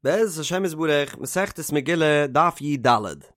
בעזרת השם יתברך, מסכת מגילה, דף י"ד.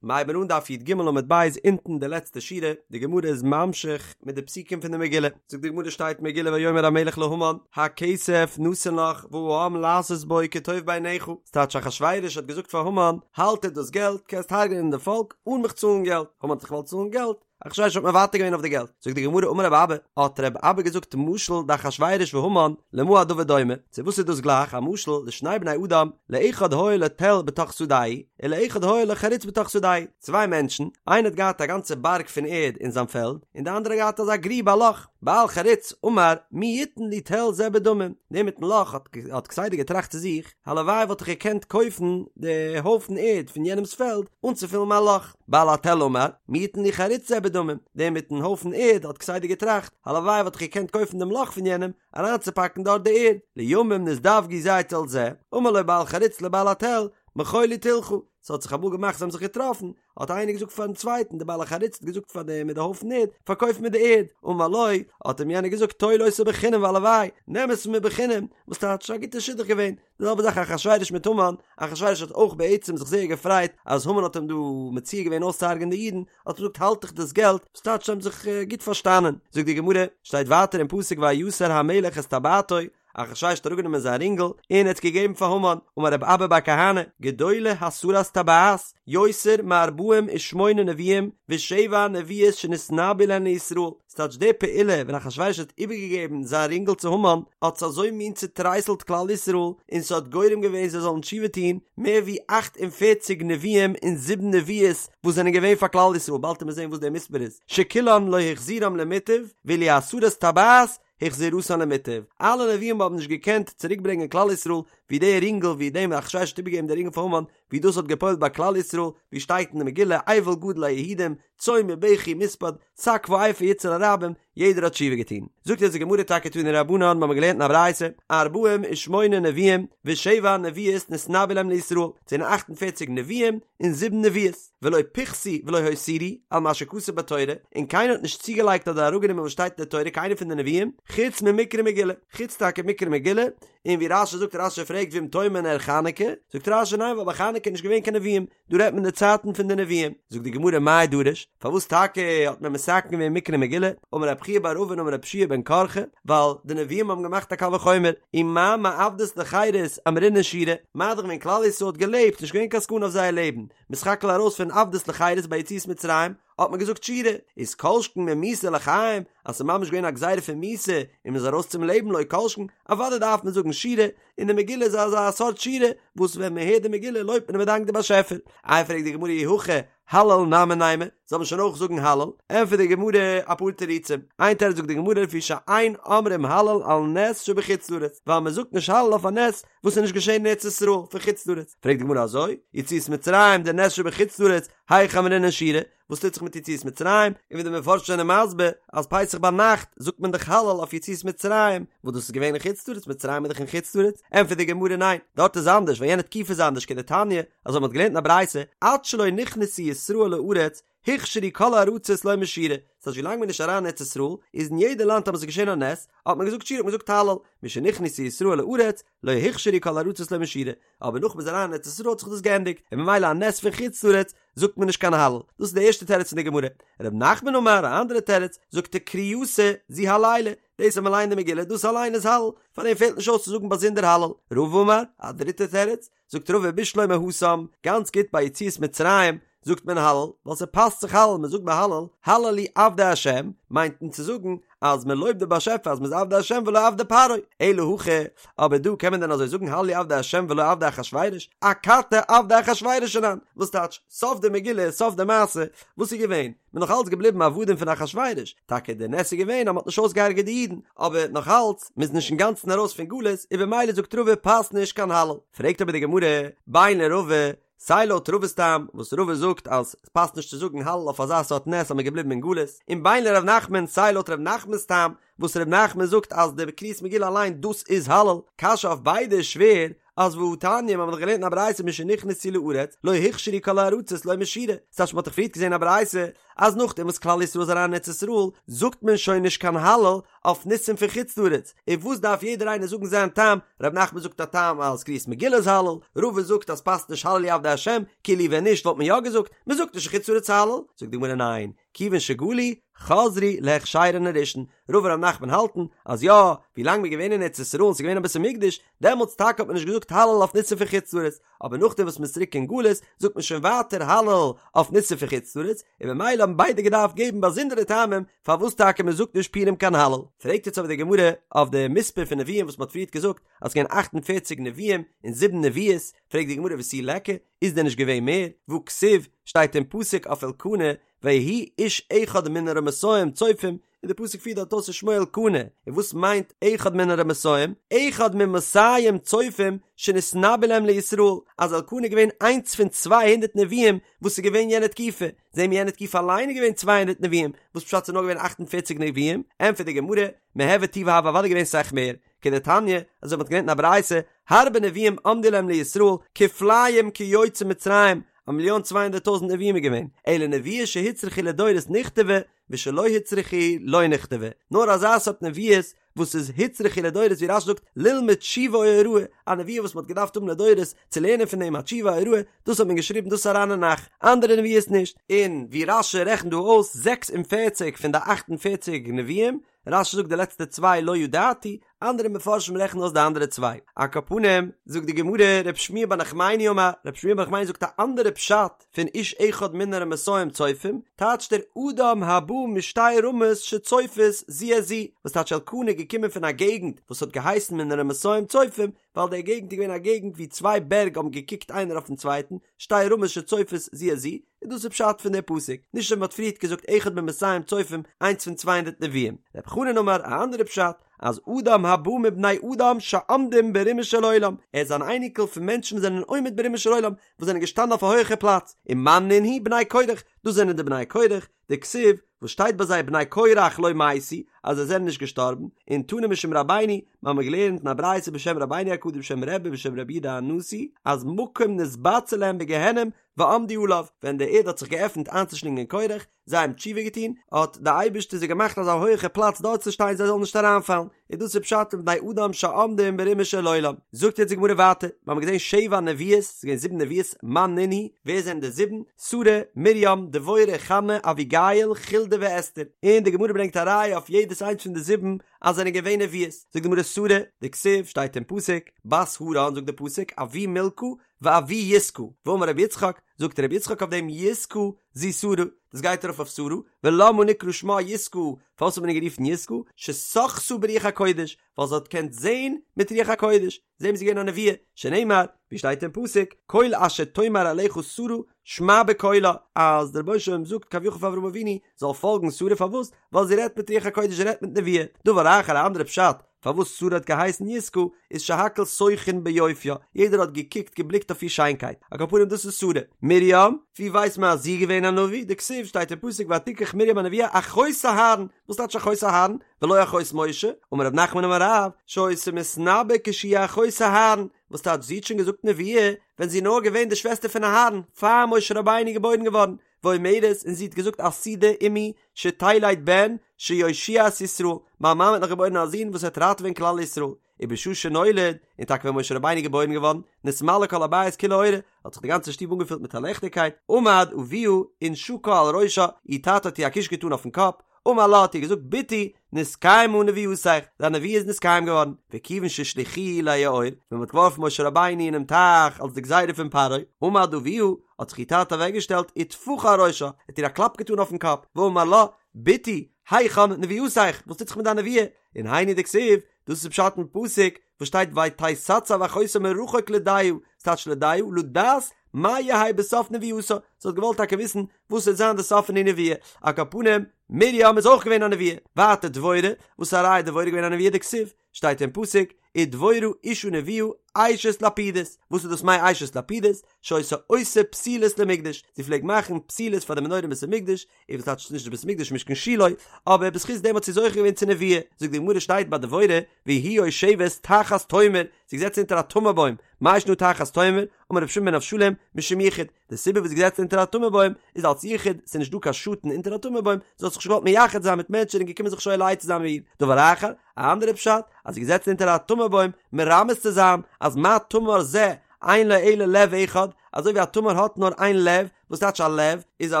מ'הייבן אן דף י"ג עמוד ב' אונטן די לעצטע שורה, די גמרא איז ממשיך מיט די פסוקים פון די מגילה, זאגט די גמרא שטייט מגילה ויאמר המלך להמן, הכסף נתון לך והעם לעשות בו כטוב בעיניך, ס'טייטש אחשורוש האט געזאגט פאר המן, האלט דיר דאס געלט, קענסט הרג'נען די פאלק אן מיך צאלן געלט, המן האט זיך געוואלט צאלן געלט, אחשורוש האט מוותר געווען אויף די געלט. זאגט די גמרא אמר רב אבא, האט רב אבא געזאגט משל דאחשורוש והמן, למה הדבר דומה, צו וואס איז דאס גלייך, א משל לשני בני אדם, לאחד היה לו תל בתוך שדהו, ולאחד היה לו חריץ בתוך שדהו, צוויי מענטשן, איינער האט געהאט א גאנצע בארג פון ערד אין זיין פעלד, און די אנדערע האט געהאט אזא גריב א לאך, בעל חריץ אמר מי יתן לי תל זה בדמים, דער מיטן לאך האט האט כסדר געטראכט צו זיך, הלוואי וואלט איך געקענט קויפן די הויפן ערד פון יענעמס פעלד אנצופילן מיין לאך. בעל התל אמר, מי יתן לי חריץ זה בדמים, דער מיטן הויפן ערד האט כסדר געטראכט, הלוואי וואלט איך געקענט קויפן דעם לאך פון יענעם, אריינצופאקן דארט די ערד. לימים נזדווגו זה אצל זה, אמר לו בעל חריץ לבעל התל, מכור לי תלך, ס'האט זיך אמאל געמאכט זיי האבן זיך געטראפן, האט איינער געזאגט פארן צווייטן, דער בעל החריץ האט געזאגט פאר דעם מיט די הויפן ערד, פארקויף מיר די ערד, אמר לו, האט אים יענער געזאגט, טול אותה בחינם והלוואי, נעם עס פון מיר בחינם, וואס טייטש, א גוטע שידוך געווען, די זעלבע זאך אחשורוש מיט המן, אחשורוש האט אויך בעצם זיך זייער געפרייט אז המן האט אים דא מציע געווען אויסצוהרג'ענען די אידן, האט ער געזאגט האלט דיך דאס געלט, וואס טייטש זיי האבן זיך גוט פארשטאנען. זאגט די גמרא, שטייט ווייטער אין פסוק ויסר המלך את טבעתו, אחשורוש האט אראפגענומען זיין רינגל און ער האט עס געגעבן פאר המן, אמר רב אבא בר כהנא, גדולה הסרת טבעת יותר מארבעים ושמונה נביאים ושבע נביאות שנתנבאו להן לישראל, ס'טייטש די פעולה ווען אחשורוש האט איבערגעגעבן זיין רינגל צו המן האט עס אזוי מין צוטרייסלט כלל ישראל און ס'האט גורם געווען זיי זאלן תשובה טון מער ווי 48 נביאים און זיבן נביאות וואס זענען געווען פאר כלל ישראל באלד וועט מען זען וואס דער מספר איז שכולן לא החזירם למוטב ואילו הסרת טבעת החזירתן למוטב אלע נביאים האבן נישט געקענט צוריקברענגען כלל ישראל ווי די רינגל ווי דעם אחשורוש האט איבערגעגעבן די רינגל פאר המן ווי דאס האט געפועלט ביי כלל ישראל ווי שטייט אין די מגילה אבל גדול ליהודים צום ובכי ומספד, שק ואפר יצעו לרבים, יעדער האט תשובה געטון. זאגט אונז די גמרא טאקע תנו רבנן, מ'האמיר געלערנט אין א ברייתא, ארבעים ושמונה נביאים ושבע נביאות נתנבאו להם לישראל, ס'זענען אכט און פערציג נביאים און זיבן נביאות, ולא פיחתו ולא הותירו על מה שכתוב בתורה, און קיינער האט נישט צוגעלייגט אדער אראפגענומען וואס שטייט אין די תורה קיינער פון די נביאים, חוץ ממקרא מגילה, חוץ טאקע מקרא מגילה, און ווי רש"י זאגט רש"י פרעגט ואם תאמר נר חנוכה, זאגט רש"י ניין ווייל ביי חנוכה איז נישט געווען קיין נביאים, דא רעדט מען די צייטן פון די נביאים, זאגט די גמרא מאי דרוש, פארוואס טאקע האט מען מתקן געווען מקרא מגילה, אמר רב חייא בר אבין אמר רבי יהושע בן קרחה, ווייל די נביאים האבן געמאכט א קל וחומר, ומה מעבדות לחירות אמרינן שירה, מה דאך ווען כלל ישראל האט געלעבט, נישט געווען קיין סכנה אויף זייער לעבן, מ'איז סך הכל ארויס פון עבדות לחירות ביי יציאת מצרים, האט מען געזאגט שירה, איז כל שכן ממיתה לחיים, אז ס'איז ממש געווען א גזירה פון מיתה און מ'איז ארויס צום לעבן לא כל שכן, אוודאי דארף מען זאגן שירה, און די מגילה איז אזא סארט שירה וואס ווען מען הערט די מגילה לויבט מען און מען דאנקט די באשעפער. איי פרעגט די גמרא אי הכי הלל נמי נימא, זאל מען שוין אויך זאגן הלל? ענטפערט די גמרא אפאר תירוצים, איין תירוץ זאגט די גמרא לפי שאין אומרים הלל על נס שבחוץ לארץ, ווייל מען זאגט נישט הלל אויף א נס וואס איז נישט געשען אין ארץ ישראל פון חוץ לארץ, פרעגט די גמרא אזוי, יציאת מצרים דנס שבחוץ לארץ, היכי אמרינן שירה, וואס טוט זיך מיט יציאת מצרים, און ווי די מפרשים זענען מסביר אז פסח ביינאכט זאגט מען דאך הלל אויף יציאת מצרים, וואס דאס איז געווען אין חוץ לארץ, מצרים איז דאך אין חוץ לארץ, ענטפערט די גמרא ניין, דארט איז אנדערש ווייל יענע תקופה איז אנדערש כדתניא, אזוי מען האט געלערנט אין א ברייתא, עד שלא נכנסו ישראל לארץ, הוכשרו כל הארצות לומר שירה, ס'הייסט ווילאנג מען איז נישט אריין אין ארץ ישראל, איז אין יעדע לאנד טאמער ס'איז געשען א נס, האט מען געזאגט שירה האט מען געזאגט הלל, משנכנסו ישראל לארץ, לא הוכשרו כל הארצות לומר שירה, אבער נאך מ'איז אריין אין ארץ ישראל האט זיך דאס געענדיגט, און ממילא א נס פון חוץ לארץ זאגט מען נישט קיין הלל, דאס איז די ערשטע תירוץ פון די גמרא. ר' נחמן אמר, א אנדערע תירוץ, זאגט ער קריאתא זו הלילא, דאס אז מ'ליינט די מגילה דאס אליין איז הלל, פאר דעם פעלט נישט אויס צו זאגן באזונדער הלל. רבא אמר, א דריטע תירוץ, זאגט רבא בשלמא התם, גאנץ גוט ביי יציאת מצרים זאגט מען הלל, ווייל ס'פאסט זיך הלל, מ'זאגט ביי הלל, הללו עבדי השם, מיינט מען צו זאגן אז מען לויבט די באשעפער אז מען איז עבדי השם ולא עבדי פרעה, אלא הכא, אבער דא קען מען דען אזוי זאגן הללו עבדי השם ולא עבדי אחשורוש, אכתי עבדי אחשורוש אנן, וואס טייטש, סוף די מגילה, סוף די מעשה, וואס איז געווען? מען נאך אלץ געבליבן עבדים פון אחשורוש, טאקע די נס איז געווען אז מען האט נישט אויסגעהרגעט די אידן, אבער נאך אלץ, מען איז נישט אינגאנצן ארויס פון גלות, און במילא זאגט רבא פאסט נישט קיין הלל. פרעגט אבער די גמרא, בין לרבא, סיי לויט רבא'ס טעם, וואס רבא זאגט אז ס'פאסט נישט צו זאגן הלל אויף אזא סארט נס אז מ'איז געבליבן אין גלות, און בין לר' נחמן, סיי לויט ר' נחמנ'ס טעם, וואס ר' נחמן זאגט אז די קריאת מגילה אליין דאס איז הלל, קשיא אויף ביידע איז שווער, אז והתניא מ'האט דאך געלערנט אין א ברייתא משנכנסו לארץ לא הוכשרו כל הארצות לומר שירה, ס'טייטש מ'האט דאך פריערט געזען א ברייתא אז נאכדעם וואס כלל ישראל איז אריין אין ארץ ישראל זאגט מען שוין נישט קיין הלל אויף ניסים פון חוץ לארץ, און וואס דארף יעדער איינער זאגן זיין טעם, ר' נחמן זאגט א טעם אז קריאת מגילה איז הלל, רבא זאגט אז פאסט נישט הללו עבדי השם, כאילו ווען נישט וואלט מען יא געזאגט, מ'זאגט נישט אין חוץ לארץ הלל, זאגט די גמרא ניין, כיוון שגלו, חזרו להכשרן הראשון, רבא און ר' נחמן האלטן אז יא, ווי לאנג מ'איז געווען אין ארץ ישראל און ס'איז געווען א בית המקדש, דעמאלטס טאקע האט מען נישט געזאגט הלל אויף ניסים פון חוץ לארץ, אבער נאכדעם וואס מ'איז צוריק אין גלות זאגט מען שוין ווייטער הלל אויף ניסים פון חוץ לארץ, און במילא האבן ביידע געדארפט געבן באזונדערע טעמים פארוואס טאקע מ'זאגט נישט פורים קיין הלל. פרעגט יעצט אבער די גמרא אויף די מספר פון נביאים וואס מ'האט פריערט געזאגט אז ס'געווען אכט און פערציג נביאים און זיבן נביאות, פרעגט די גמרא ותו ליכא, איז דען נישט געווען מער? והכתיב, שטייט אין פסוק אויף אלקנה, ויהי איש אחד מן הרמתים צופים, און די פסוק פירט דארט אויס ושמו אלקנה, און וואס מיינט אחד מן הרמתים? אחד ממאתים צופים שנתנבאו להם לישראל, אז אלקנה איז געווען איינס פון 200 נביאים וואס איז געווען יענע תקופה, זעהן מיר יענע תקופה אליין איז געווען 200 נביאים, וואס פשט ס'איז נאר געווען 48 נביאים? ענטפערט די גמרא, מיהוה טובא הוו אוודאי געווען סאך מער, כדתניא, אזוי מ'האט געלערנט אין א ברייתא, הרבה נביאים עמדו להם לישראל, כפליים כיוצאי מצרים, א מיליאן 200 טויזנט נביאים איז געווען, אלא נבואה שהוצרכה לדורות נכתבה, ושלא הוצרכה לא נכתבה, נאר אזא סארט נביאות וואס איז הוצרכה לדורות ווי רש"י זאגט ללמוד תשובה או הוראה, א נבואה וואס מען האט געדארפט האבן לדורות צו לערנען פון דעם א תשובה א הוראה, דאס האט מען געשריבן דאס איז אריין אין נ"ך, אנדערע נבואות נישט. און ווי רש"י רעכנט דא אויס 46 פון די 48 נביאים, רש"י זאגט די לעצטע צוויי לא ידעתי, אנדערע מפרשים רעכענען אויס די אנדערע צוויי. על כל פנים, זאגט די גמרא, רב שמואל בר נחמני אמר, רב שמואל בר נחמני זאגט א אנדערע פשט פון איש אחד מן הרמתים צופים, טייטשט ער אדם הבא משתי רמות שצופות זו את זו, וואס טייטש אלקנה איז געקומען פון א געגנט וואס האט געהייסן מן הרמתים צופים, ווייל די געגנט איז געווען א געגנט ווי צוויי בערג האבן געקוקט איינער אויפן צווייטן, שתי רמות שצופות זו את זו, און דאס איז פשט פון די פסוק, נישט ווי מ'האט פריערט געזאגט אחד ממאתים צופים, איינס פון צוויי הונדערט נביאים. רב חנן אמר א אנדערע פשט, אז אדם הבא מבני אדם שעומדים ברומו של עולם, ער איז אן אייניקל פון מענטשן וואס זענען עומד ברומו של עולם, וואס זענען געשטאנען אויף א הויכע פלאץ, ומאן נינהו בני קרח, דאס זענען די בני קרח, דכתיב, וואס שטייט ביי זיי בני קרח לא מתו, אז זיי זענען נישט געשטארבן, און תנא משום רבינו, מיר האבן געלערנט אין א ברייתא בשם רבינו הקדוש בשם רבי בשם רבי יהודה הנשיא, אז מקום נתבצר להם בגיהנום ועמדו עליו, ווען די ערד האט זיך געעפנט איינצושלינגען קרח, זיי האבן תשובה געטון, האט די אייבערשטער זיי געמאכט אזא הויעכע פלאץ דארט צו שטיין זיי זאלן נישט אריינפאלן, און דאס איז פשט אין בני אדם שעומדים ברומו של עולם. זאגט יעצט די גמרא ווייטער, מיר האבן געזען שבע נביאות, ס'איז געווען זיבן נביאות, מאן נינהו, ווער זענען די זיבן? שרה, מרים, דבורה, חנה, אביגיל, חולדה ואסתר. און די גמרא ברענגט א ראיה אויף יעדעס איינס פון די זיבן אז זענען געווען נביאות. זאגט די גמרא שרה, דכתיב, שטייט אין פסוק, בת הרן, זאגט די פסוק, אבי מלכה, ואבי יסכה, ואמר רבי יצחק, זאגט רבי יצחק אויף דעם יסכה זו שרה, דאס גייט ארויף אויף שרה, ולמה נקרא שמה יסכה, פארוואס האט מען איר גערופן יסכה, ששחתה ברוח הקודש, ווייל זי האט געקענט זען מיט רוח הקודש, זעהן מיר זי איז געווען א נביאה, שנאמר, ווי שטייט אין פסוק, כל אשר תאמר אליך שרה שמע בקולה, אז דער רבונו של עולם זאגט כביכול פאר אברהם אבינו זאל פאלגן שרה פארוואס? ווייל זי רעדט מיט רוח הקודש זי רעדט מיט נבואה, דבר אחר א אנדערע פשט פארוואס שרה האט געהייסן יסכה איז שהכל שוחין ביופיה, יעדער האט געקוקט געבליקט אויף איר שיינקייט, על כל פנים דאס איז שרה. מרים, ווי ווייסט מען אז זי איז געווען א נביא? דכתיב שטייט אין פסוק ותקח מרים הנביאה אחות אהרן, וואס טייטש אחות אהרן? ולא אחות משה, אמר רב נחמן אמר רב, שהיתה מתנבאה כשהיא אחות אהרן, וואס טייטש זי האט שוין געזאגט נבואה ווען זי איז נאר געווען די שוועסטער פון אהרן, פאר משה רבינו איז געבוירן געווארן, ואומרת, און זי האט געזאגט עתידה אמי שתלד בן שיושיע את ישראל, מיין מאמע האט נאך געבוירן א זון וואס וועט ראטעווען כלל ישראל, ובשעה שנולד, און טאקע ווען משה רבינו איז געבוירן געווארן, נתמלא כל הבית כולו אורה, האט זיך די גאנצע שטוב אנגעפילט מיט א ליכטיגקייט, עמד אביה ונשקה על ראשה, איר טאטע האט איר א קוש געטאן אויפן קאפ, אמר לה האט איר געזאגט בתי נתקיימה נבואתך, דיין נבואה איז נתקיים געווארן, וכיוון שהשליכוהו ליאור, ווען מען האט געווארפן משה רבינו אינעם טייך אלס די גזירה פון פרעה, עמד אביה, האט זיך איר טאטע אוועקגעשטעלט וטפחה על ראשה, האט איר א קלאפ געטאן אויפן קאפ, ואמר לה, בתי, היכן נבואתך, וואס טוט זיך מיט דיין נבואה? און היינו דכתיב, דאס איז פשט אין פסוק וואס שטייט ותתצב אחותה מרחוק לדעה, ס'טייטש לדעה, לדעת מה יהא בסוף נבואתה, זי האט געוואלט טאקע וויסן וואס וועט זיין די סוף פון די נבואה, על כל פנים, מרים איז אויך געווען א נביאה, ווייטער דבורה, וואס א ראיה דבורה איז געווען א נביאה דכתיב, שטייט אין פסוק, ודבורה אשה נביאה אשת לפידות, וואס איז דאס מי אשת לפידות? שהיתה עושה פתילות למקדש, זי פלעגט מאכן פתילות פאר די מנורה אין בית המקדש, און וואס טייטש נישט די בית המקדש משכן שילה, אבער בזכות דעם האט זי זוכה געווען צו נבואה, זאגט די גמרא שטייט ביי דבורה והיא יושבת תחת תומר, זי איז געזעצן אונטער א תמר בוים, מאי שנא תחת תומר, אמר רבי שמעון בן אבשלום, משום יחוד, די סיבה וואס זי איז געזעצן אונטער א תמר בוים איז אלס יחוד, ס'איז נישט דא קיין שאטן אונטער א תמר בוים, זי האט זיך נישט געוואלט מייחד זיין מיט מענטשן און געקומען זיך שואל עצה זיין מיט איר, דבר אחר, א אנדערע פשט, אז זי איז געזעצן אונטער א תמר בוים מרמז צו זיין אז מה תמר זה אין לו אלא לב אחד, אזוי ווי א תמר האט נאר איין לב, וואס טייטש א לב? איז א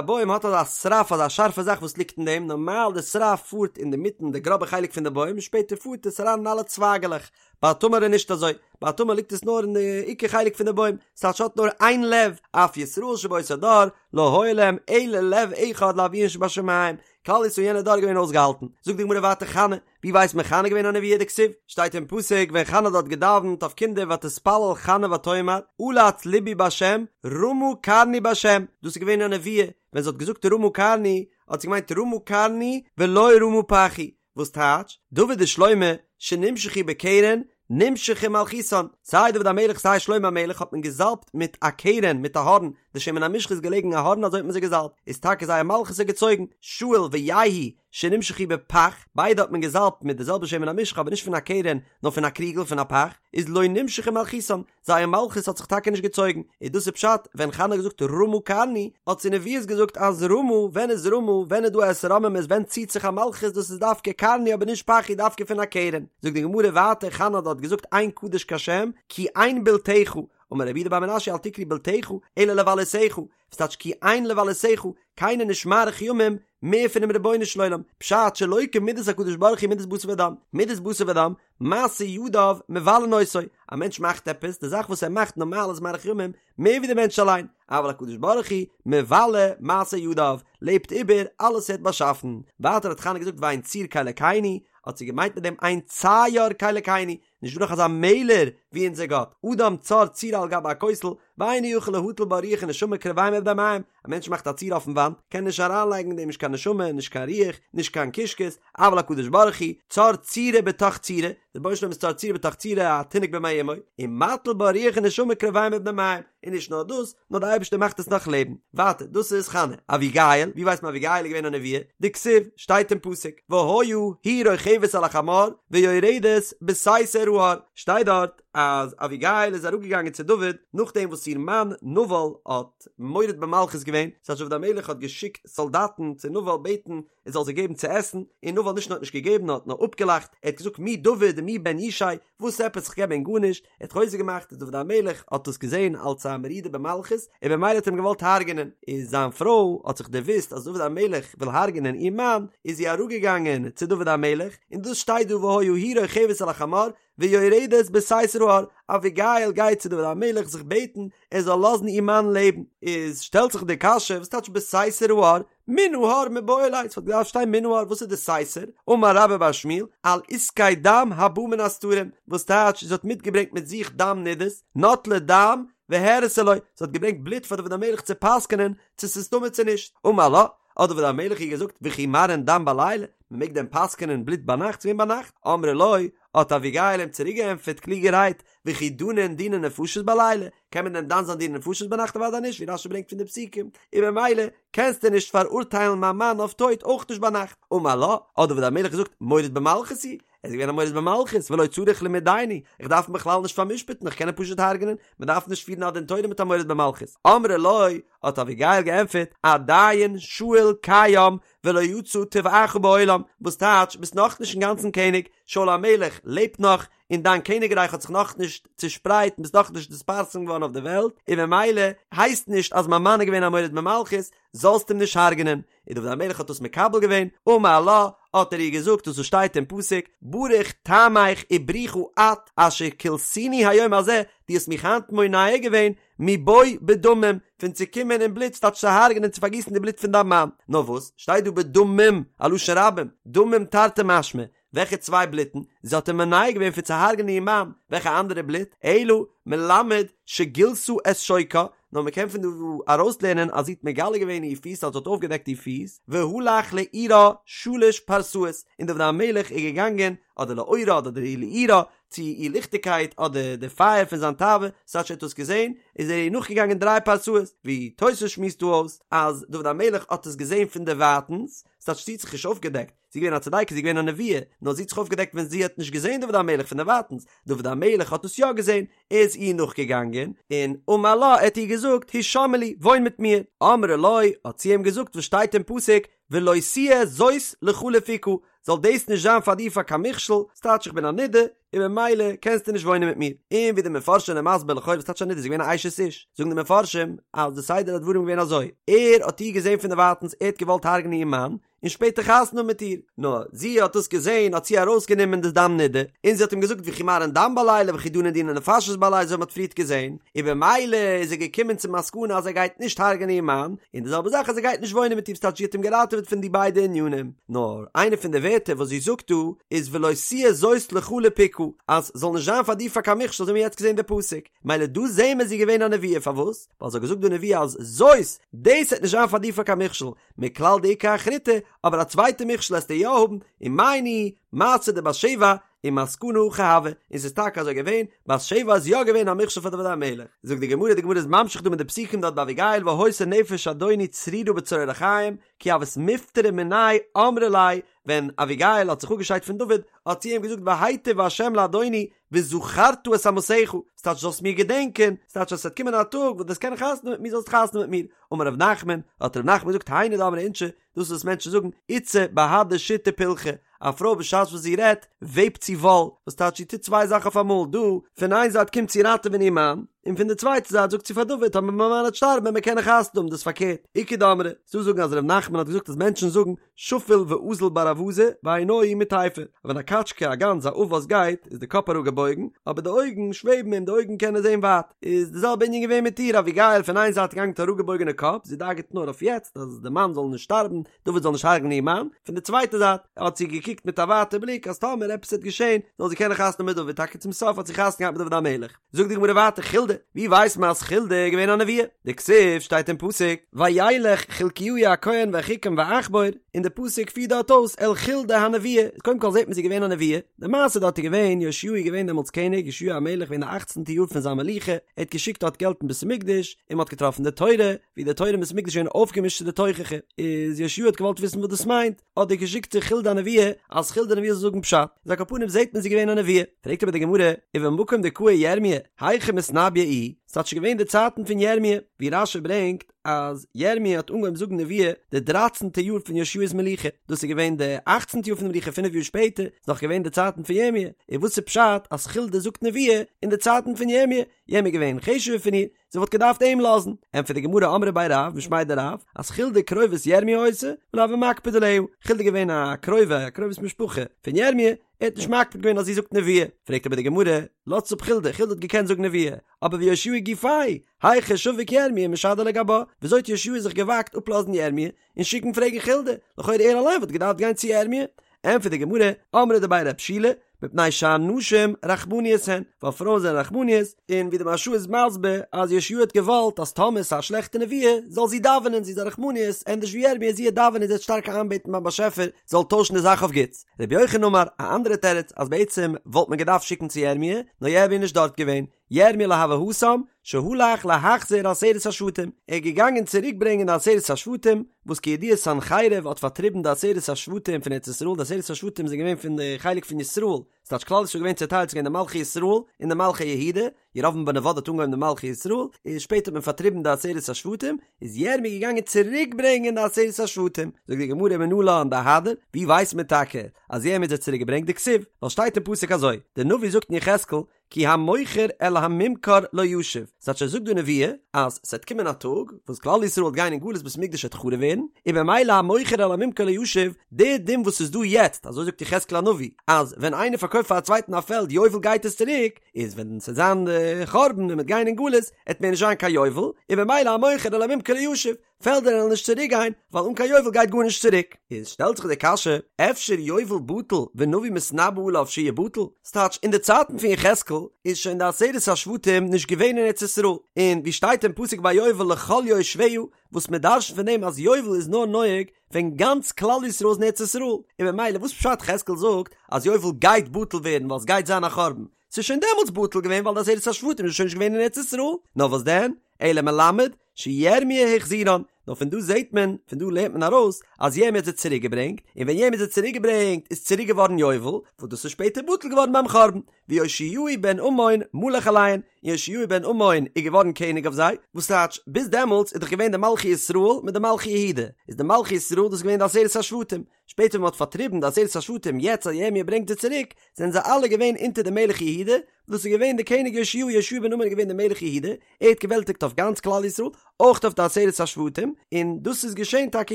בוים האט אזא שרף אזא שארפע זאך וואס ליגט אין דעם, נארמאל די שרף פארט אינדערמיטן די גראבע חלק פון די בוים און שפעטער פארט עס אריין אין אלע צווייגעלעך, ביי א תמר איז נישט אזוי, ביי א תמר ליגט עס נאר אין די עיקר חלק פון די בוים, ס'טייטש האט נאר איין לב, אף ישראל שבאותו דור לא היה להם אלא לב אחד לאביהם שבשמים, כלל ישראל יענע דור איז געווען אויסגעהאלטן, זאגט די גמרא ווייטער חנה, ווי ווייסט מען חנה געווען א נביאה דכתיב, שטייט אין פסוק ווען חנה האט דארט געדאווענט אויף קינדער ותתפלל חנה ותאמר עלץ לבי בהשם רמה קרני בהשם, דאס איז געווען א נביאה, ווען זי האט געזאגט רמה קרני האט זי געמיינט רמה קרני ולא רמה פחי, וואס טייטש, דוד ושלמה שנמשחו בקרן נמשכה מלכותן, סיי דוד המלך סיי שלמה המלך האט מען געזאלבט מיט א קרן מיט א הארן, די שמן המשחה איז געלעגן א הארן אזוי האט מען זיי געזאלבט, איז טאקע זייער מלכות איז געצויגן, שאול ויהוא שנמשחו בפך, ביידע האט מען געזאלבט מיט די זעלבע שמן המשחה אבער נישט פון א קרן נאר פון א קריגל פון א פך, איז לא נמשכה מלכותן, זייער מלכות האט זיך טאקע נישט געצויגן, איז דאס איז פשט ווען חנה האט געזאגט רמה קרני, האט זי נביאות געזאגט אז רמה, ווען איז רמה, ווען איז דא א התרוממות, ווען ציט זיך א מלכות, דאס איז דווקא קרני אבער נישט פחי דווקא פון א קרן, זאגט די גמרא ווייטער חנה האט דארט געזאגט אין קדוש כהשם כי אין בלתך, אמר רב יהודה בר מנשיא אל תקרי בלתך אלא לבלותך, וואס טייטש כי אין לבלותך, קיינער נישט מאריך ימים מער פונעם רבונו של עולם, פשט שלא כמידת הקדוש ברוך הוא מידת בשר ודם, מידת בשר ודם, מעשה ידיו מבלין אותו, א מענטש מאכט עפעס, די זאך וואס ער מאכט נארמאל איז מאריך ימים מער ווי די מענטש אליין, אבל הקדוש ברוך הוא מבלה מעשה ידיו, לעבט איבער אלעס ער האט באשאפן, ווייטער האט חנה געזאגט ואין צור כאלקינו, האט זי געמיינט מיט דעם אין צייר כאלקינו, נישט דא נאך אזא מעלער ווי אונזער גאט, אדם צר צורה על גבי הכותל, ואינו יכול להטיל בה רוח ונשמה קרביים ובני מעיים, א מענטש מאכט א צורה אויפן וואנט, קען נישט אריינלייגן אין דעם נישט קיין נשמה, נישט קיין רוח, נישט קיין קישקעס, אבל הקדוש ברוך הוא, צר צורה בתוך צורה, דער רבונו של עולם איז צר צורה בתוך צורה, א תינוק במעי אמו, ומטיל בה רוח ונשמה קרביים ובני מעיים, און נישט נאר דאס, נאר דער אייבערשטער מאכט עס נאך לעבן. ווייטער, דאס איז חנה. אביגיל, ווי ווייסט מען אביגיל איז געווען א נביאה? דכתיב, שטייט אין פסוק, והיה היא רוכבת על החמור ויורדת בסתר ההר, שטייט דארט אז אביגיל איז אראפגעגאנגען צו דוד נאכדעם וואס איר מאן נבל האט מורד במלכות געווען, ס'הייסט דוד המלך האט געשיקט סאלדאטן צו נבל בעטן ער זאל זיי געבן צו עסן, און נבל נישט נאר האט נישט געגעבן נאר האט נאר אפגעלאכט, ער האט געזאגט מי דוד ומי בן ישי, וואס עפעס איך געב ענק גארנישט, ער האט חוזק געמאכט און דוד המלך האט דאס געזען אלס א מרידה במלכות, און במילא האט ער אים געוואלט הרג'נען, איז זיין פרוי האט זיך דערוואוסט אז דוד המלך וויל הרג'נען איר מאן, איז זי אראפגעגאנגען צו דוד המלך, און דאס שטייט דא והיה היא רוכבת על החמור, ויורדת בסתר ההר, אביגיל גייט צו דוד המלך זיך בעטן ער זאל לאזן איר מאן לעבן, איז שטעלט זיך די קשיא וואס טייטש בסתר ההר, מן ההר מיבעי ליה, ס'וואלט געדארפט שטיין מן ההר, וואס איז די סתר? אמר רבה בר שמואל, על עסקי דם הבא מן הסתרים, וואס טייטש זי האט מיטגעברענגט מיט זיך דם נידות, נטלה דם והראתה לו, זי האט געברענגט בלוט פאר דוד המלך צו פסק'נען צו ס'איז טמא צו נישט, אמר לה, האט דוד המלך איר געזאגט, וכי מראין דם בלילה, מ'מעג דען פסק'נען בלוט ביינאכט? ס'געווען ביינאכט, אמרה לו, האט אביגיל אים צוריק געענטפערט קלוגערהייט, וכי דנין דיני נפשות בלילה, קען מען דען דן זיין דיני נפשות ביינאכט אוודאי נישט, ווי רש"י ברענגט פון די פסוקים, און במילא קענסטו נישט פאראורטיילן מיין מאן אויף טויט אויך נישט ביינאכט, אמר לה, האט דוד המלך געזאגט, מורד במלכות הוא, ער איז געווען א מורד במלכות, ולא צריך למידייני, איך דארף אים בכלל נישט פאר'משפט'ן, איך קען אים פשוט הרג'נען, מען דארף נישט פירן א דין תורה מיט א מורד במלכות, אמרה לו, האט אביגיל געענטפערט, עדיין שאול קיים ולא יצא טבעך בעולם, וואס טייטש, ביסט נאכנישט אינגאנצן קעניג, שאול המלך לעבט נאך, און דיין קעניגרייך האט זיך נאכנישט צושפרייט און ביסט נאכנישט נתפרסם געווארן אויף די וועלט, און ממילא הייסט נישט אז מיין מאן איז געווען א מורד במלכות, זאלסט אים נישט הרג'נען. און דוד המלך האט דאס מקבל געווען, אמר לה, האט ער איר געזאגט דאס וואס שטייט אין פסוק, ברוך טעמך וברוכה את אשר כליתני היום הזה, דו האסט מיך היינט מונע געווען מבוא בדמים, פון צו קומען אין בלוט, ס'טייטש צו הרג'נען צו פארגיסן די בלוט פון דיין מאן. נאר וואס, שטייט דא בדמים, א לשון רבים, דמים תרתי משמע, וועלכע צוויי בלוטן? זי האט אים מונע געווען פון צו הרג'נען איר מאן, וועלכע אנדערע בלוט? אלא מלמד שגילתה את שוקה, נאר מען קען פון דא ארויסלערנען אז זי האט מגלה געווען איר פיס אז זי האט אויפגעדעקט איר פיס, והלך לאורה שלש פרסאות, און דוד המלך איז געגאנגען, אדער לאורה אדער לאורה, צו איר ליכטיגקייט אדער די פייער פון זיין תאווה, ס'טייטש ער האט דאס געזען, איז ער איר נאכגעגאנגען דריי פרסאות, ווי תוס' שמועסט דא אויס אז דוד המלך האט עס געזען פון דערווייטנס, ס'טייטש זי האט זיך נישט אויפגעדעקט, זי איז געווען א צדיקת, זי איז געווען א נביאה, נאר זי האט זיך אויפגעדעקט ווען זי האט נישט געזען דוד המלך פון דערווייטנס, דוד המלך האט עס יא געזען, ער איז איר נאכגעגאנגען, און אמר לה, ער האט איר געזאגט, הישמעי לי, וואוין מיט מיר, אמרה לו, האט זי אים געזאגט וואס שטייט אין פסוק, ולא תהיה זאת לך לפוקה, זאל דאס נישט זיין פאר דיר פאר קיין מכשול, ס'טייטש איך בין א נידה, און ממילא קענסטו נישט וואוינען מיט מיר. און ווי די מפרשים זענען מסביר לכאורה וואס טייטש א נידה, זי איז געווען א אשת איש, זאגן די מפרשים אז די סדר הדברים איז געווען אזוי, ער האט איר געזען פון דערווייטנס, ער האט געוואלט הרג'נען איר מאן, און שפעטער חתונה האבן מיט איר, נאר זי האט דאס געזען האט זי ארויסגענומען די דם נידה, און זי האט אים געזאגט וכי מרעין דם בלילה וכי דנין דיני נפשות בלילה אזוי ווי מ'האט פריערט געזען, און במילא איז ער געקומען צום מסקנא אז ער גייט נישט הרג'נען איר מאן, און די זעלבע זאך אז ער גייט נישט וואוינען מיט איר ס'טייטש זי האט אים געראטעוועט פון די ביידע ענינים, נאר איינע פון די ווערטער וואס זי זאגט דא איז ולא תהיה זאת לך לפוקה אז ס'זאל נישט זיין פאר דיר פאר קיין מכשול אזוי ווי מ'האט יעצט געזען די פסוק, מילא דא זעהן מיר זי איז געווען א נביאה פארוואס? ווייל זי האט געזאגט די נביאה אז זאת דאס וועט נישט זיין פאר דיר פאר קיין מכשול, מכלל דאיכא אחריתי, אבער א צווייטע מכשול עסטו יא האבן, ומאי ניהו, מעשה דבת שבע, ומסקנא הכי הוה, און ס'איז טאקע אזוי געווען, בת שבע איז יא געווען א מכשול פאר דוד המלך. זאגט די גמרא, די גמרא איז ממשיך דא מיט די פסוקים דארט ביי אביגיל והיתה נפש אדוני צרורה בצרור החיים, כי הות מיפטרא מיניה אמרה ליה, ווען אביגיל האט זיך אפגעשיידט פון דוד, האט זי אים געזאגט והיטב ה' לאדוני, וזכרת את אמתך, ס'טייטש זאלסט מיר געדענקען, ס'טייטש אז ס'וועט קומען א טאג וואס דו וועסט קענען חתונה האבן מיט מיר זאלסט חתונה האבן מיט מיר. אמר ר' נחמן, האט ר' נחמן געזאגט היינו דאמרי אינשי, דאס איז וואס מענטשן זאגן, איתתא בהדי שיטי פילכא, א פרוי בשעת וואס זי רעדט, וועבט זי וואל, וואס טייטש זי טוט צוויי זאכן אויף אמאל, דא, פון איין זייט קומט זי ראטעווען איר מאן, און פון די צווייטע זייט זאגט זי פאר דוד, טאמער מיין מאן וועט שטארבן וועט מען קענען חתונה האבן, דאס איז פארקערט, איכא דאמרי, ס'דא זאגן אז ר' נחמן האט געזאגט אז מענטשן זאגן, שפיל ואזיל בר אווזא ועינוהי מיטייפי, ווען א קאטשקע, א גאנז, א עוף וואס גייט, איז די קאפ אראפגעבויגן, אבער די אויגן שוועבן און די אויגן קענען זען ווייט. איז די זעלבע ענין געווען מיט איר, אביגיל פון איין זייט געגאנגען מיט אראפגעבויגענע קאפ, זי דאגה'ט נאר אויף יעצט אז די מאן זאל נישט שטארבן, דוד זאל נישט הרג'נען איר מאן, פון די צווייטע זייט האט זי געקוקט מיט א ווייטע בליק אז טאמער עפעס וועט געשען זאל זי קענען חתונה האבן מיט דוד, טאקע צום סוף האט זי חתונה געהאט מיט דוד המלך. זאגט די גמרא ווייטער חולדה, ווי ווייסט מען אז חולדה איז געווען א נביאה? דכתיב שטייט אין פסוק, וילך חלקיהו הכהן ואחיקם ועכבור, און די פסוק פירט דארט אויס אל חולדה הנביאה, איז קודם כל זעט מען זי איז געווען א נביאה, די מעשה דארט איז געווען, יאשיהו איז געווען דעמאלטס קעניג, יאשיהו המלך געווען די אכצנטע יאר פון זיין מלוכה, ער האט געשיקט דארט געלט אין בית המקדש, און מען האט געטראפן די תורה, ווי די תורה אין בית המקדש איז געווען אויפגעמישט צו די תוכחה, איז יאשיהו האט געוואלט וויסן וואס דאס מיינט, האט ער געשיקט צו חולדה הנביאה אז חולדה הנביאה זאל זאגן פשט, איז על כל פנים זעט מען זי איז געווען א נביאה, פרעגט אבער די גמרא, ובמקום דקאי ירמיה, היכי מתנביא איהי, ס'טייטש ס'איז געווען די צייטן פון ירמיה, ווי רש"י ברענגט אז ירמיה האט אנגעהויבן זאגן נביאה די דרייצנטע יאר פון יאשיהו'ס מלוכה, דאס איז געווען די אכצנטע יאר פון די מלוכה פינף יאר שפעטער, איז נאך געווען די צייטן פון ירמיה, און וואס איז פשט אז חולדה זאגט נביאה אין די צייטן פון ירמיה, ירמיה איז געווען חשוב'ער פון איר, זי וואלט געדארפט אים לאזן. ענטפערט די גמרא אמרי בי רב משמיה דרב, אז חולדה קרובת ירמיה היתה, ולא הוה מקפיד עליה, חולדה איז געווען א קרובה, א קרובת משפחה, פון ירמיה, ער האט נישט מקפיד געווען אז זי זאגט נביאה. פרעגט אבער די גמרא, לאזטס אפ חולדה, חולדה האט געקענט זאגן נביאה, אבער ויאשיהו גופיה, היכי שביק ירמיה ומשדר לגבה, וויאזוי האט יאשיהו זיך געוואגט אפלאזן ירמיה, און שיקן פרעגן חולדה, לכאורה ער אליין וואלט געדארפט גיין צו ירמיה. ענטפערט די גמרא, אמרי דבי רב שילא, מפני שהנשים רחמניות הן, ווייל פרויען זענען רחמניות, און ווי די מהרש"א איז מסביר אז יאשיהו האט געוואלט אז טאמער ס'איז א שלעכטע נביאה זאל זי דאווענען, זי איז א רחמניות, ענדערש ווי ירמיה, זי וועט דאווענען, זי וועט שטארק איינבעטן ביים באשעפער זאל טוישן די זאך אויף גוטס. רבי יוחנן אמר, א אנדערע תירוץ, אז בעצם וואלט מען געדארפט שיקן צו ירמיה, נאר ירמיה איז נישט דארט געווען, ירמיה לא הוה התם, שהלך להחזיר עשרת השבטים, ער איז געגאנגען צוריק ברענגען די עשרת השבטים, וואס כידוע סנחריב האט פארטריבן די עשרת השבטים פון ארץ ישראל, די עשרת השבטים זענען געווען פון די חלק פון ישראל, ס'טייטש כלל ישראל איז געווען צעטיילט ס'איז געווען די מלכי ישראל און די מלכי יהודה, ירבעם בן נבט האט אנגעהויבן די מלכי ישראל, און שפעטער האט מען פארטריבן די עשרת השבטים, איז ירמיה געגאנגען צוריק ברענגען די עשרת השבטים, זאגט די גמרא מנלן דאהדר, ווי ווייסט מען טאקע אז ירמיה האט זיי צוריק געברענגט דכתיב, ווייל שטייט אין פסוק אזוי, די נביא זאגט אין יחזקאל, כי המוכר אל הממכר לא ישוב, ס'טייטש ער זאגט דא נבואה אז ס'וועט קומען א טאג וואס כלל ישראל וועט גיין אין גלות בית המקדש וועט חרוב ווערן, און במילא המוכר אל הממכר לא ישוב, די דין וואס איז דא יעצט, אזוי זאגט יחזקאל הנביא, אז ווען איינער פארקויפט פאר א צווייטן א פעלד יובל גייט עס צוריק, איז ווען ס'וועט זיין די חורבן און מ'וועט גיין אין גלות, עט מער נישט זיין קיין יובל, און במילא המוכר אל הממכר לא ישוב. פעלדער וועלן נישט צוריק גיין, ווייל אן קיין יובל גייט גארנישט צוריק. איז שטעלט זיך די קשיא, אפשר יובל בטל ונביא מתנבא עליו שיבטל? ס'טייטש, אין די צייטן פון יחזקאל איז שוין די עשרת השבטים נישט געווען אין ארץ ישראל, און ווי שטייט אין פסוק ביי יובל לכל יושביה, וואס מען דרש'נט פון דעם אז יובל איז נאר נוהג ווען גאנץ כלל ישראל איז אין ארץ ישראל, און ממילא וואס פשט יחזקאל זאגט אז יובל גייט בטל ווערן ווייל סגייט זיין א חורבן, ס'איז שוין דעמאלטס בטל געווען ווייל די עשרת השבטים איז שוין נישט געווען אין ארץ ישראל, נאר וואס דען, אלא מלמד שירמיה החזירן, נאר פון דא זעט מען, פון דא לערנט מען ארויס אז ירמיה האט זיי צוריק געברענגט, און ווען ירמיה האט זיי צוריק געברענגט איז צוריק געווארן יובל, וואס דאס איז שפעטער בטל געווארן ביים חורבן, ויאשיהו בן אמון מלך עליהן, און יאשיהו בן אמון איז געווארן קעניג אויף זיי, וואס טייטש, ביז דעמאלטס איז דאך געווען די מלכי ישראל מיט די מלכי יהודה, איז די מלכי ישראל דאס איז געווען די עשרת השבטים, שפעטער ווען מען האט פארטריבן די עשרת השבטים יעצט אז ירמיה ברענגט זיי צוריק, זענען זיי אלע געווען אונטער די מלך יהודה, דאס איז געווען די קעניג יאשיהו, יאשיהו בן אמון איז געווען די מלך יהודה, ער האט געוועלטיגט אויף גאנץ כלל ישראל, אויך אויף די עשרת השבטים, און דאס איז געשען טאקע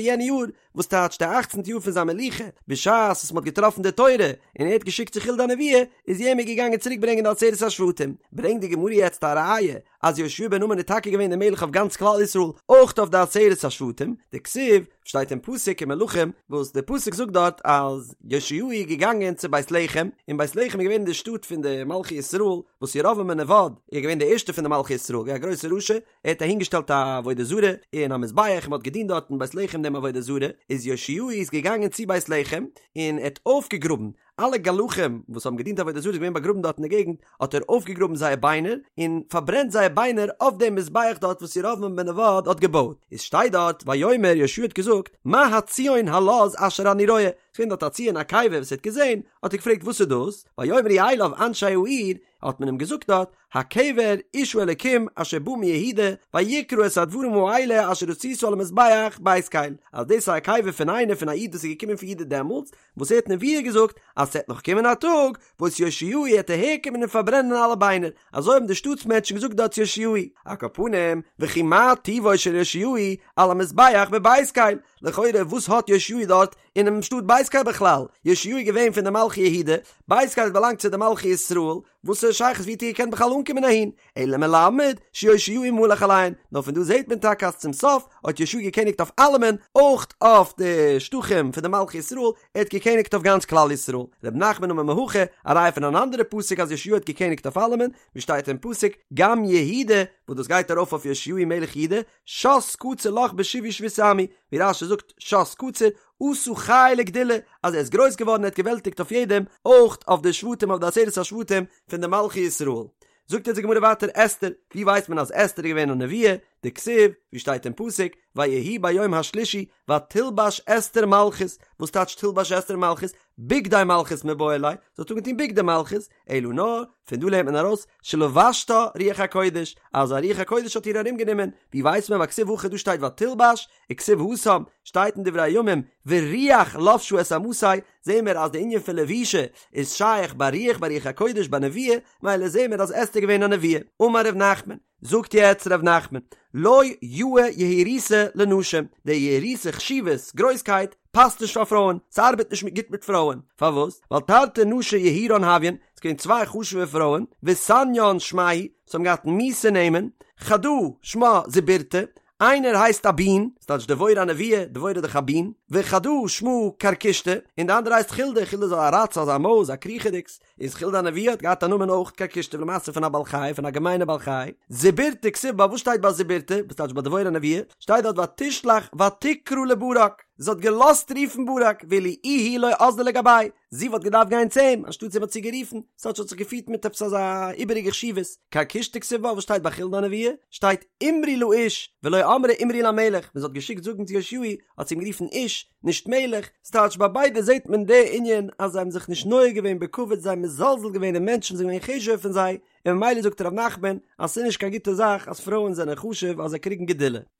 יענע יאר, וואס טייטש די אכצנטע יאר פון זיין מלוכה, בשעת וואס מען האט געטראפן די תורה, און ער האט געשיקט צו חולדה הנביאה, איז ירמיה געגאנגען צוריק ברענגען די עשרת השבטים. ברענגט די גמרא יעצט א ראיה, אז יאשיהו בן אמון איז טאקע געווען די מלך אויף גאנץ כלל ישראל, אויך אויף די עשרת השבטים, דכתיב, שטייט אין פסוק אין מלכים, וואס די פסוק זאגט דארט אז יאשיהו איז געגאנגען צו בית לחם, און בית לחם איז געווען אין די שטאט פון די מלכי ישראל, וואס ירבעם בן נבט איז געווען די ערשטע פון די מלכי ישראל, געווען א גרויסע רשע, ער האט אהינגעשטעלט א עבודה זרה און א מזבח און מען האט געדינט דארט אין בית לחם דעם עבודה זרה, איז יאשיהו איז געגאנגען צו בית לחם און ער האט אויפגעגראבן אלע גלחים וואס האבן געדינט עבודה זרה איז געווען באגראבן דארט אין די געגנט, האט ער אויפגעגראבן זייער ביינער און פארברענט זייער ביינער אויף דעם מזבח דארט וואס ירבעם בן נבט האט געבויט, איז שטייט דארט ויאמר יאשיהו האט געזאגט מה הציון הלז אשר אני רואה, ס'איז געווען דארט א ציון א קבר וואס ער האט געזען, האט ער געפרעגט וואס איז דאס, ויאמרו אליו אנשי העיר, האט מען אים געזאגט דארט, הקבר איש האלקים אשר בא מיהודה, ויקרא את הדברים האלה אשר עשית על המזבח בית קל, אז דאס איז א קבר פון איינער פון א איד וואס איז געקומען פון יהודה דעמאלטס, וואס ער האט נבואה געזאגט אז ס'עט נאך קומען א טאג וואס יאשיהו עט אהער קומען און פארברענען אלע ביינער, אזוי האבן די שטאטס מענטשן געזאגט דארט צו יאשיהו, על כל פנים, וכי מה טיבו של יאשיהו על המזבח בבית קל, לכאורה וואס האט יאשיהו דארט אינעם שטאט בית קל בכלל, יאשיהו איז געווען פון די מלכי יהודה, בית קל האט באלאנגט צו די מלכי ישראל, וואס איז שייכות ווי האט ער געקענט בכלל אנקומען אהין, אלא מלמד שיאשיהו מלך עליהן, נאר פון דא זעט מען טאקע אז צום סוף האט יאשיהו געקעניגט אויף אלעמען, אויך אויף די שטחים פון די מלכי ישראל, ער האט געקעניגט אויף גאנץ כלל ישראל. ר' נחמן אמר מהכא, א ראיה פון אן אנדערע פסוק אז יאשיהו האט געקעניגט אויף אלעמען, ווי שטייט אין פסוק, גם יהודה, וואס דאס גייט ארויף אויף יאשיהו מלך יהודה, שת קציר לך בשובי שבות עמי, ווי רש"י זאגט שת קציר, עשה חיל וגדולה, אז ער איז גרויס געווארן ער האט געוועלטיגט אויף יעדעם, אויך אויף די שבטים אויף די עשרת השבטים פון די מלכי ישראל. זאגט אונז די גמרא ווייטער אסתר, ווי ווייסט מען אז אסתר איז געווען א נביאה, דכתיב, ווי שטייט אין פסוק, ויהי ביום השלישי ותלבש אסתר מלכות, וואס טייטש תלבש אסתר מלכות? בגדי מלכות מיבעי ליה, זי האט אנגעטון בגדי מלכות, אלא נאר, פון דא לערנט מען ארויס, שלבשתה רוח הקודש, אז א רוח הקודש האט איר ארום גענומען, ווי ווייסט מען ווייל כתיב הכא דא שטייט ותלבש, וכתיב התם, שטייט אין דברי הימים, ורוח לבשה את אמתי, זעהן מיר אז די ענין פון לבישה איז שייך ביי רוח ביי רוח הקודש ביי נביאה, מילא זעהן מיר אז אסתר איז געווען א נביאה. אמר ר' נחמן, זאגט יעצט ר' נחמן, לא יאה יהירותא לנשים, די יהירותא חשיבות, גרויסקייט, פאסט נישט פאר פרויען, ס'ארבעט נישט גוט מיט פרויען, פארוואס? ווייל תרתי נשי יהירן הויין, ס'איז געווען צוויי חשוב'ע פרויען, וסניין שמייהו, וואס האבן געהאט מיאוסע נעמען, חדא שמה זיבורתא, איינער הייסט א בין, ס'טייטש דבורה הנביאה, דבורה איז דאך א בין, וחדא שמה כרכושתא, און די אנדערע הייסט חולדה, חולדה איז א ראץ, אזא מויז, א קריכעדיגס, איז חולדה הנביאה האט געהאט א נאמען אויך כרכושתא למעשה פון א בעל חי, פון א געמיינע בעל חי, זיבורתא כתיב בה, וואס שטייט ביי זיבורתא, וואס טייטש ביי דבורה הנביאה, שטייט דארט ותשלח ותקרא לברק, זי האט געלאזט רופן ברק, ואילו איהי לא אזלה לגביה, זי וואלט געדארפט גיין צו אים, אנשטאט זי האט זי גערופן, ס'טייטש האט זיך געפירט מיט עפעס אזא איבעריגע חשיבות, כרכושתא כתיב בה, וואס שטייט ביי חולדה הנביאה, שטייט אמרי לאיש, ולא אמרה אמרי למלך, ווען זי האט געשיקט זאגן צו יאשיהו, האט זי אים גערופן איש, נישט מלך, ס'טייטש ביי ביידע זעט מען די ענין אז זיי האבן זיך נישט נוהג געווען בכבוד זיי האבן מזלזל געווען אין מענטשן זיי זענען געווען חשוב'ער פון זיי, און ממילא זאגט ר' נחמן אז ס'איז נישט קיין גוטע זאך אז פרויען זענען חשוב אז זיי קריגן גדולה.